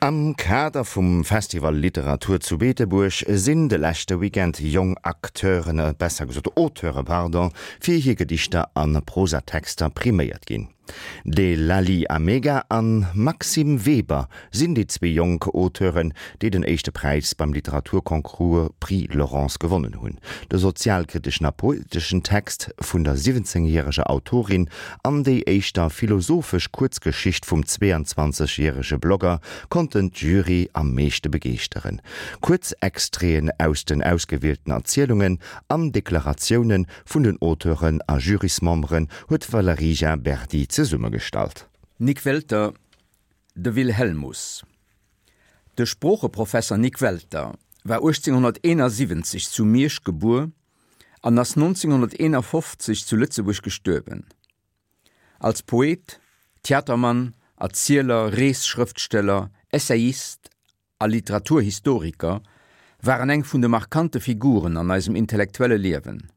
Am Kader vum Festival Literatur zu Beetebuerg sinn de leschte Weekend jonk Acteuren, besser gesot Auteure, pardon, fir hir Gedichter a Prosatexter priméiert ginn. De Lali Amega an Maxime Weber sinn déi zwee jonk Auteuren, déi den éischte Präis beim Literaturconcours Prix Laurence gewonnen hunn. De sozialkriteschen a poeteschen Text vun der 17 järeger Autorin an déi éischter philosophesch Kuerzgeschicht vum 22 järege Blogger konnten d'Jury am meeschte begeeschteren. Kuerz Extraiten aus den ausgewielten Erzielungen an Deklaratiounen Vun den Auteuren a Jurysmemberen huet d'Valerija Berdi zesummegestallt. Nik Welter, De Wilhelmus. De Sproocheprofesser Nik Welter war 1871 zu Miersch gebuer an ass 1951 zu Lëtzebuerg gestuerwen. Als Poet, Theatermann, Erzieler, Reesschrëftsteller, Essayist a Literaturhistoriker war en eng vun de markante Figuren an eisem intellektuelle Liewen.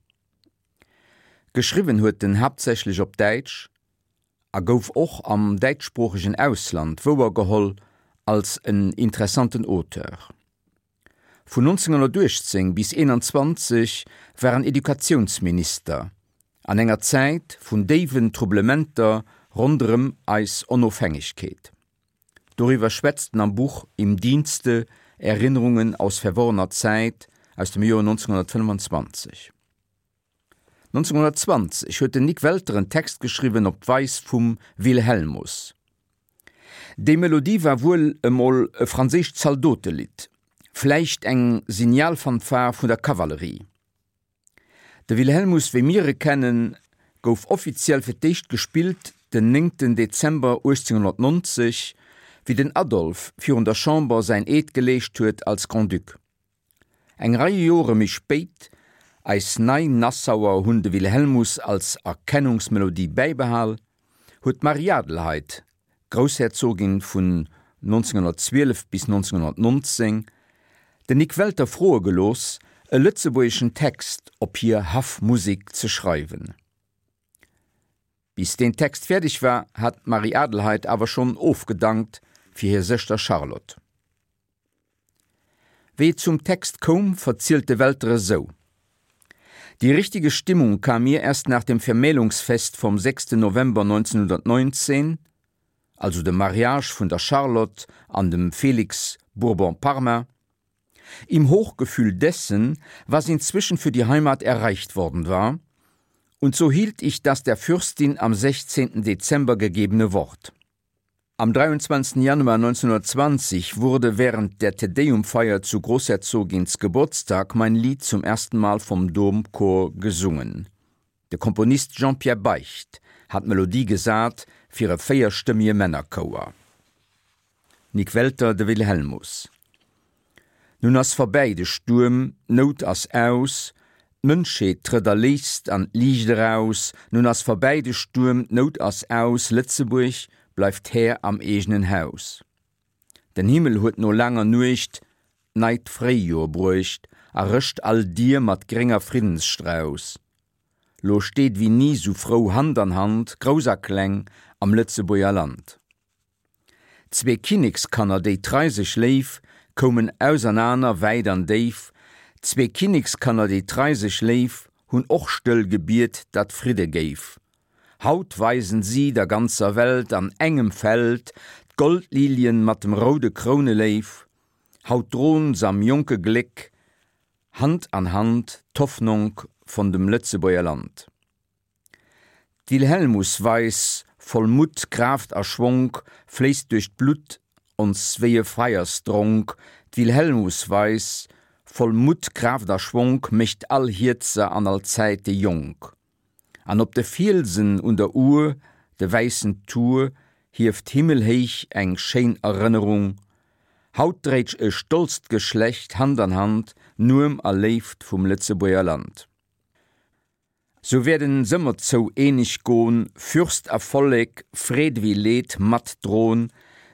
Geschriwwen huet en haaptsächlech op Däitsch a gouf och am däitschsproochegen Ausland wouergeholl als en interessanten Auteur. Vun 1918 bis 21 war en Educatiounsminister an enger Zäit vun déiwen Troublementer ronderëm eis Onofhängegkeet. Doriwwer schwätzt en am Buch Im Dienste, Erinnerungen aus verworrener Zeit aus dem Joer 1925. 1920 huet den Nik Welter en Text geschriwwen op d'Weis vum Wilhelmus. Déi Melodie war wuel emol e franséischt Zaldotelidd, vläicht eng Signalfanfare vun der Kavallerie. De Wilhelmus wéi mir e kennen, gouf offiziell fir d'éischt gespillt den néngten Dezember 1890, wéi den Adolphe virun der Chamber säin Eed geleescht huet als Grand-Duc. Eng Rei Jore méi spéit, eis nei Nassauer hunn de Wilhelmus als Erkennungsmelodie bäibehal, huet d'Marie-Adelheid Groussherzogin vun 1912 bis 1919, den Nik Welter froe gelooss, e lëtzebuergeschen Text op hir Haffmusek ze schreiwen. Bis deen Text fäerdeg war, hat d'Marie-Adelheid awer schonn ofgedankt fir hir Sëschter Charlotte. Wéi et zum Text koum, verzielt de Welter esou, Die richtige Stimmung kam mir erst nach dem Vermählungsfest vom 6. November 1919, also dem Mariage vun der Charlotte an dem Felix Bourbon-Parma, im Hochgefühl dessen, was inzwischen für die Heimat erreicht worden war, und so hielt ich das der Fürstin am 16. Dezember gegebene Wort. Am 23. Januar 1920 wurde während der Te-Deum-Feier zu Großherzogins Geburtstag mein Lied zum ersten Mal vom Domchor gesungen. De Komponist Jean-Pierre Beicht hat d'Melodie gesat fir e véierstëmmige Männerchouer. Nik Welter, De Wilhelmus. Nun ass verbäi de Stuerm, d'Nout ass aus, D'Mënschheet trëtt erléist an d'Liicht eraus. Nun ass verbäi de Stuerm, d'Nout ass aus, Lëtzebuerg bleift Här am eegenen Haus. Den Himmel huet no laanger Nuecht d'neit Fréijoer bruecht a rëscht all Dier mat grénger Friddensstrauss. Lo steet wéi ni sou frou Hand an Hand, Grouss a Kleng am Lëtzebuerger Land. Zwee Kinnekskanner, déi trei sech léif, koumen ausernaner wäit an déif. Zwee Kinnekskanner, déi trei sech léif, hunn och stëll gebiet, datt Fridde géif. Haut weisen si der ganzer Welt an engem Feld d'Goldlilien mat dem roude Krouneléif. Haut dron s'am jonke Gléck Hand an Hand d'Hoffnonk von dem Lëtzebuerger Land. D'Wilhelmusweis voll Mutt, Kraaft a Schwonk fléisst duerch d'Blutt ons wéi e Feiersdronk, d'Wilhelmusweis voll Mutt, Kraaft a Schwonk mécht all Hierzer an all Zäite jonk. An op de Fielsen un der Our, de wäissen Tour hieft himmelhéich eng schéin Erënnerung, haut dréit e stolzt Geschlecht Hand an Hand Nuem a Léift vum Lëtzebuerger Land. Sou wäerden s'ëmmer zou eeneg gon, Fürst a Vollek, Freed ewéi Leed mat dron,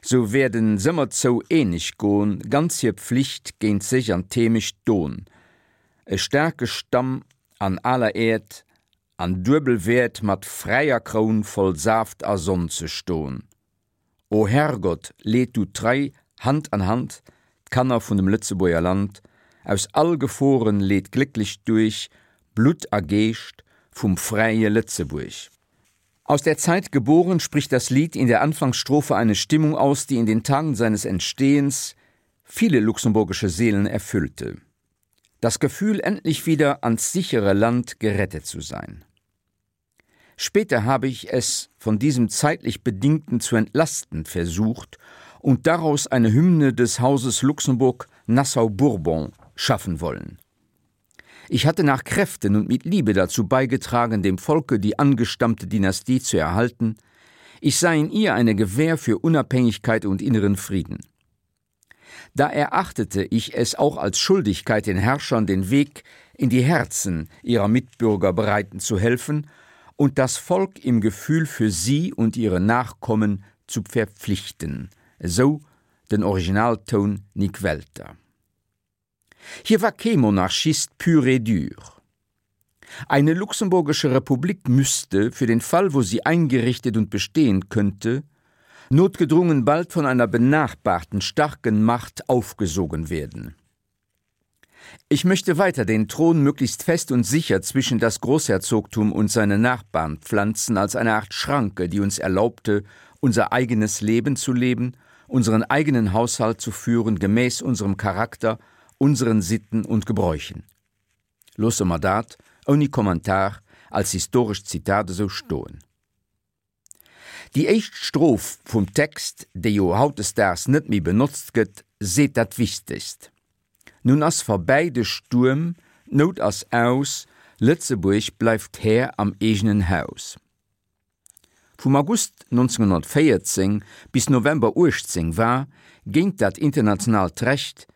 Sou wäerden s'ëmmer zou eeneg gon, Ganz hir Pflicht géint sech an d'Heemecht don. E staarke Stamm an aler Äerd an duebel Wäert Mat fräier Kroun voll Saaft a Sonn ze ston. O Herrgott, leet du trei. Hand an Hand, d'Kanner vun dem Lëtzebuerger Land, aus all Geforen leet glécklech duerch, Blutt a Geescht vum fräie Lëtzebuerg. Aus der Zeit geboren spricht das Lied in der Anfangsstrophe eine Stimmung aus, die in den Tagen seines Entstehens viele luxemburgische Seelen erfüllte. Das Gefühl, endlich wieder ans sichere Land gerettet zu sein. Später habe ich es von diesem zeitlich bedingten zu entlasten versucht und daraus eine Hymne des Hauses Luxemburg Nassau-Bourbon schaffen wollen. Ich hatte nach Kräften und mit Liebe dazu beigetragen, dem Volke die angestammte Dynastie zu erhalten. Ich sah in ihr eine Gewähr für Unabhängigkeit und inneren Frieden. Da erachtete ich es auch als Schuldigkeit, den Herrschern den Weg in die Herzen ihrer Mitbürger bereiten zu helfen und das Volk im Gefühl für sie und ihre Nachkommen zu verpflichten, so den Originalton Nick Welter. Hier war kee Monarchist pur et dur. Eine luxemburgische Republik müsste, für den Fall, wo sie eingerichtet und bestehen könnte, notgedrungen bald von einer benachbarten starken Macht aufgesogen werden. Ich möchte weiter den Thron möglichst fest und sicher zwischen das Großherzogtum und seine Nachbarn pflanzen als eine Art Schranke, die uns erlaubte, unser eigenes Leben zu leben, unseren eigenen Haushalt zu führen gemäß unserem Charakter, unseren Sitten und Gebräuchen. Loosse mer dat, ouni Kommentar, als historescht Zitat esou stoen. Déi éischt Stroph vum Text, déi jo hautdesdaags net méi benotzt gëtt, seet dat Wichtegst, Nun ass verbäi de Stuerm, d'Nout ass aus, Lëtzebuerg bleift Här am eegenen Haus. Vum August 1914 bis November 18 war, géint dat internationaalt Recht,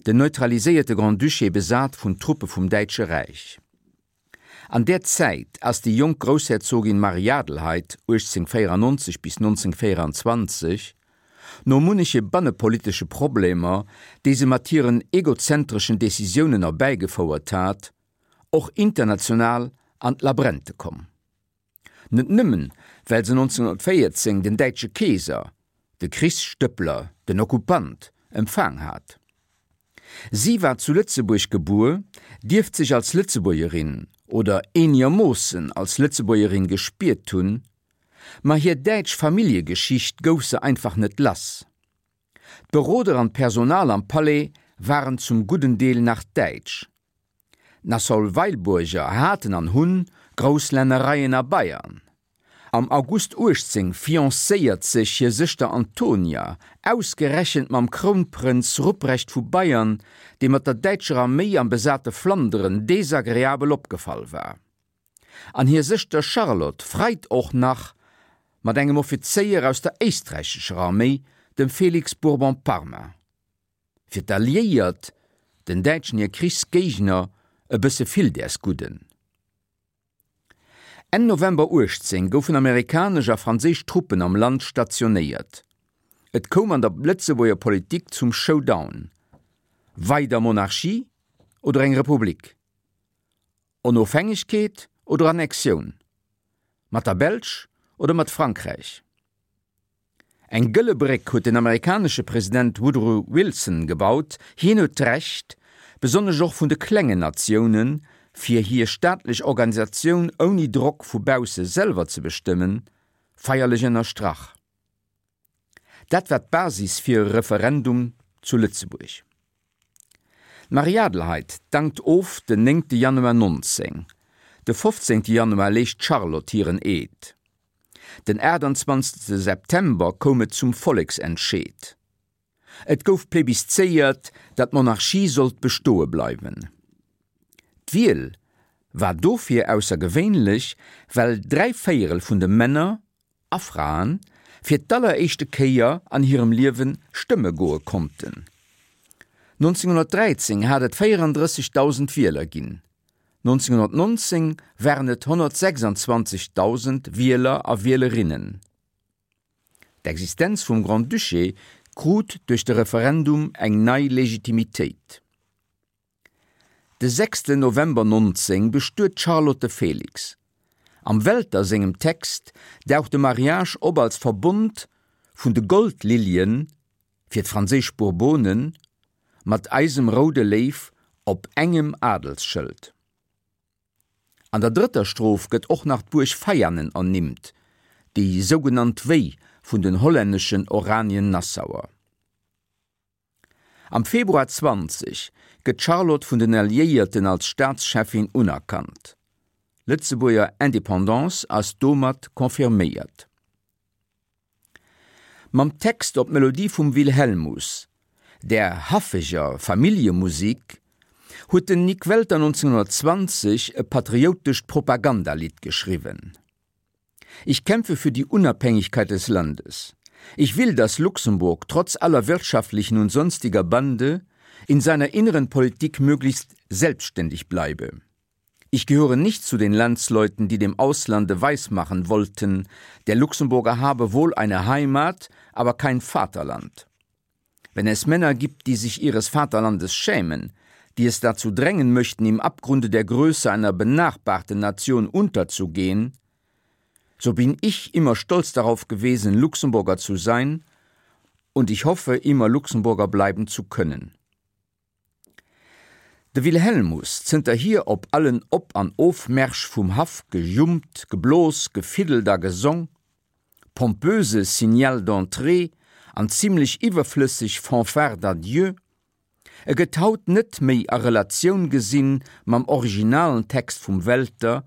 den neutraliséierte Grand-Duché besat vun Truppe vum Däitsche Räich. An där Zäit ass déi jonk Groussherzogin Marie-Adelheid, 1894 bis 1924, no munneche bannepolitesche Problemer, déi se mat hiren egozentreschen Decisiounen erbäigefouert hat, och international an d'Labrente komm. Net nëmmen, well se 1914 den däitsche Keeser, de Krichsstëppler, den Okkupant, empfaang hat. Si war zu Lëtzebuerg gebuer, dierft sech als Lëtzebuergerin oder eenegermoossen als Lëtzebuergerin gespiert hunn, ma hir däitsch Familljegeschicht gouf se einfach net lass. D'Beroder an d'Personal am Palais waren zum gudden Deel nach däitsch. D'Nassau-Weilburger haten an hunn grouss Lännereien a Bayern. Am August 18 fiancéiert sech hir Sëschter Antonia ausgerechent mam Krounprënz Rupprecht vu Bayern, dee mat der däitscher Arméi am besate Flanderen desagreabel opgefall war. An hir Sëschter Charlotte freit och nach mat engem Offizéier aus der éisträichescher Arméi, dem Felix Bourbon-Parma. Fir d'Alliéiert, den Däitschen hir Krichsgéigner, e bësse vill däers Gudden. Enn November 18 goufen amerikanesch a franséisch Truppen am Land stationéiert. Et koum an der Lëtzebuerger Politik zum Showdown, Weider Monarchie oder eng Republik? Onofhängegkeet oder Annexioun? Mat der Belsch oder mat Frankräich? Eng gëlle Bréck huet den amerikanesche President Woodrow Wilson gebaut. Hien huet d'Recht, besonnesch och vun de klengen Natiounen, fir hir staatlech Organisatioun ouni Drock vu bausse selwer ze bestëmmen, feierlech ënnerstrach. Dat war d'Basis fir e Referendum zu Lëtzebuerg. D'Marie-Adelheid dankt of den 9 Januar 19. De 15 Januar leescht d'Charlotte hiren Eed. Den 28 September koum et zum Volleksentscheed. Et gouf plebiszéiert, datt d'Monarchie sollt bestoe bleiwen. D'Wiel war dofir aussergewéinlech, well dräivéierel vun de Männer a Fraen fir d'alleréischte Kéier an hirem Liewe stëmme goe konnten. 1913 hat et 34.000 Wieler ginn, 1919 waren et 126.000 Wieler a Wielerinnen. D'Existenz vum Grand-Duché krut duerch de Referendum eng nei Legitimitéit. De 6 November 19 bestuet d'Charlotte de Félix. Am Welter sengem Text daucht de Mariage op als Verbond vun de Goldlilien. Fir d'franséisch Bourbonen, mat eisem roude Léiw op engem Adelsschëld. An der drëtter Stroph gëtt och nach d'Buerg Veianen ernimmt, déi sougenannt Wéi vun den hollänneschen Oranien-Nassauer. Am Februar 20 gëtt d'Charlotte vun den Alliéierten als Staatscheffin unerkannt. Lëtzebuerger Independance ass domat confirméiert. Mam Text op d'Melodie vum Wilhelmus, där haffeger Familljemusik, huet den Nik Welter 1920 e patrioutescht Propagandalidd geschriwwen. Ich kämpfe für die Unabhängigkeit des Landes. Ich will, dass Luxemburg trotz aller wirtschaftlichen und sonstiger Bande in seiner inneren Politik möglichst selbstständig bleibe. Ich gehöre nicht zu den Landsleuten, die dem Auslande weismachen wollten, der Luxemburger habe wohl eine Heimat, aber kein Vaterland. Wenn es Männer gibt, die sich ihres Vaterlandes schämen, die es dazu drängen möchten, im Abgrunde der Größe einer benachbarten Nation unterzugehen, so bin ich immer stolz darauf gewesen, Luxemburger zu sein, und ich hoffe, immer Luxemburger bleiben zu können. De Wilhelmus, zënterhier op allen Op an Ofmärsch vum Haff gejummt, geblos, gefiddelt a gesong, pompöse Signal d'entrée an zimlech iwwerflësseg Fanfare d'adieu, e gëtt haut net méi a Relatioun gesinn mam originalen Text vum Welter,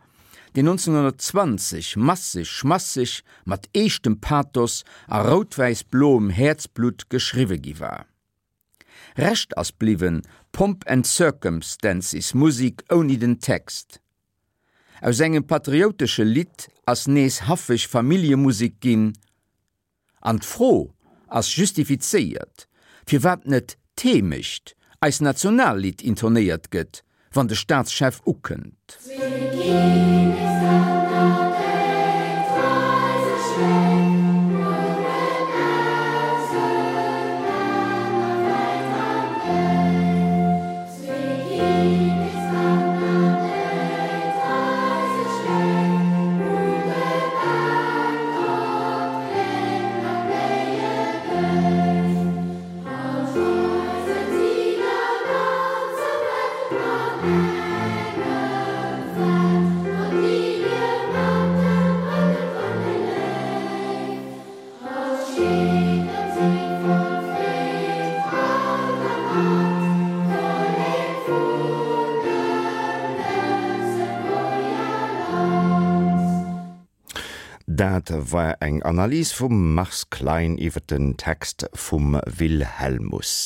deen 1920 masseg, schmasseg, mat eeschtem Pathos a routwäiss-bloem Häerzblutt geschriwwe gi war. Rescht ass bliwwen Pomp and Circumstances, Musik ouni den Text. Aus engem patrioutesche Lidd ass nees haffeg Familljemusek ginn. An d'Fro ass justifizéiert, firwat net d'Heemecht, eis Nationallidd, intonéiert gëtt, wann de Staatschef ukënnt. Dat war eng Analys vum Mars Klein iwwer den Text vum Wilhelmus.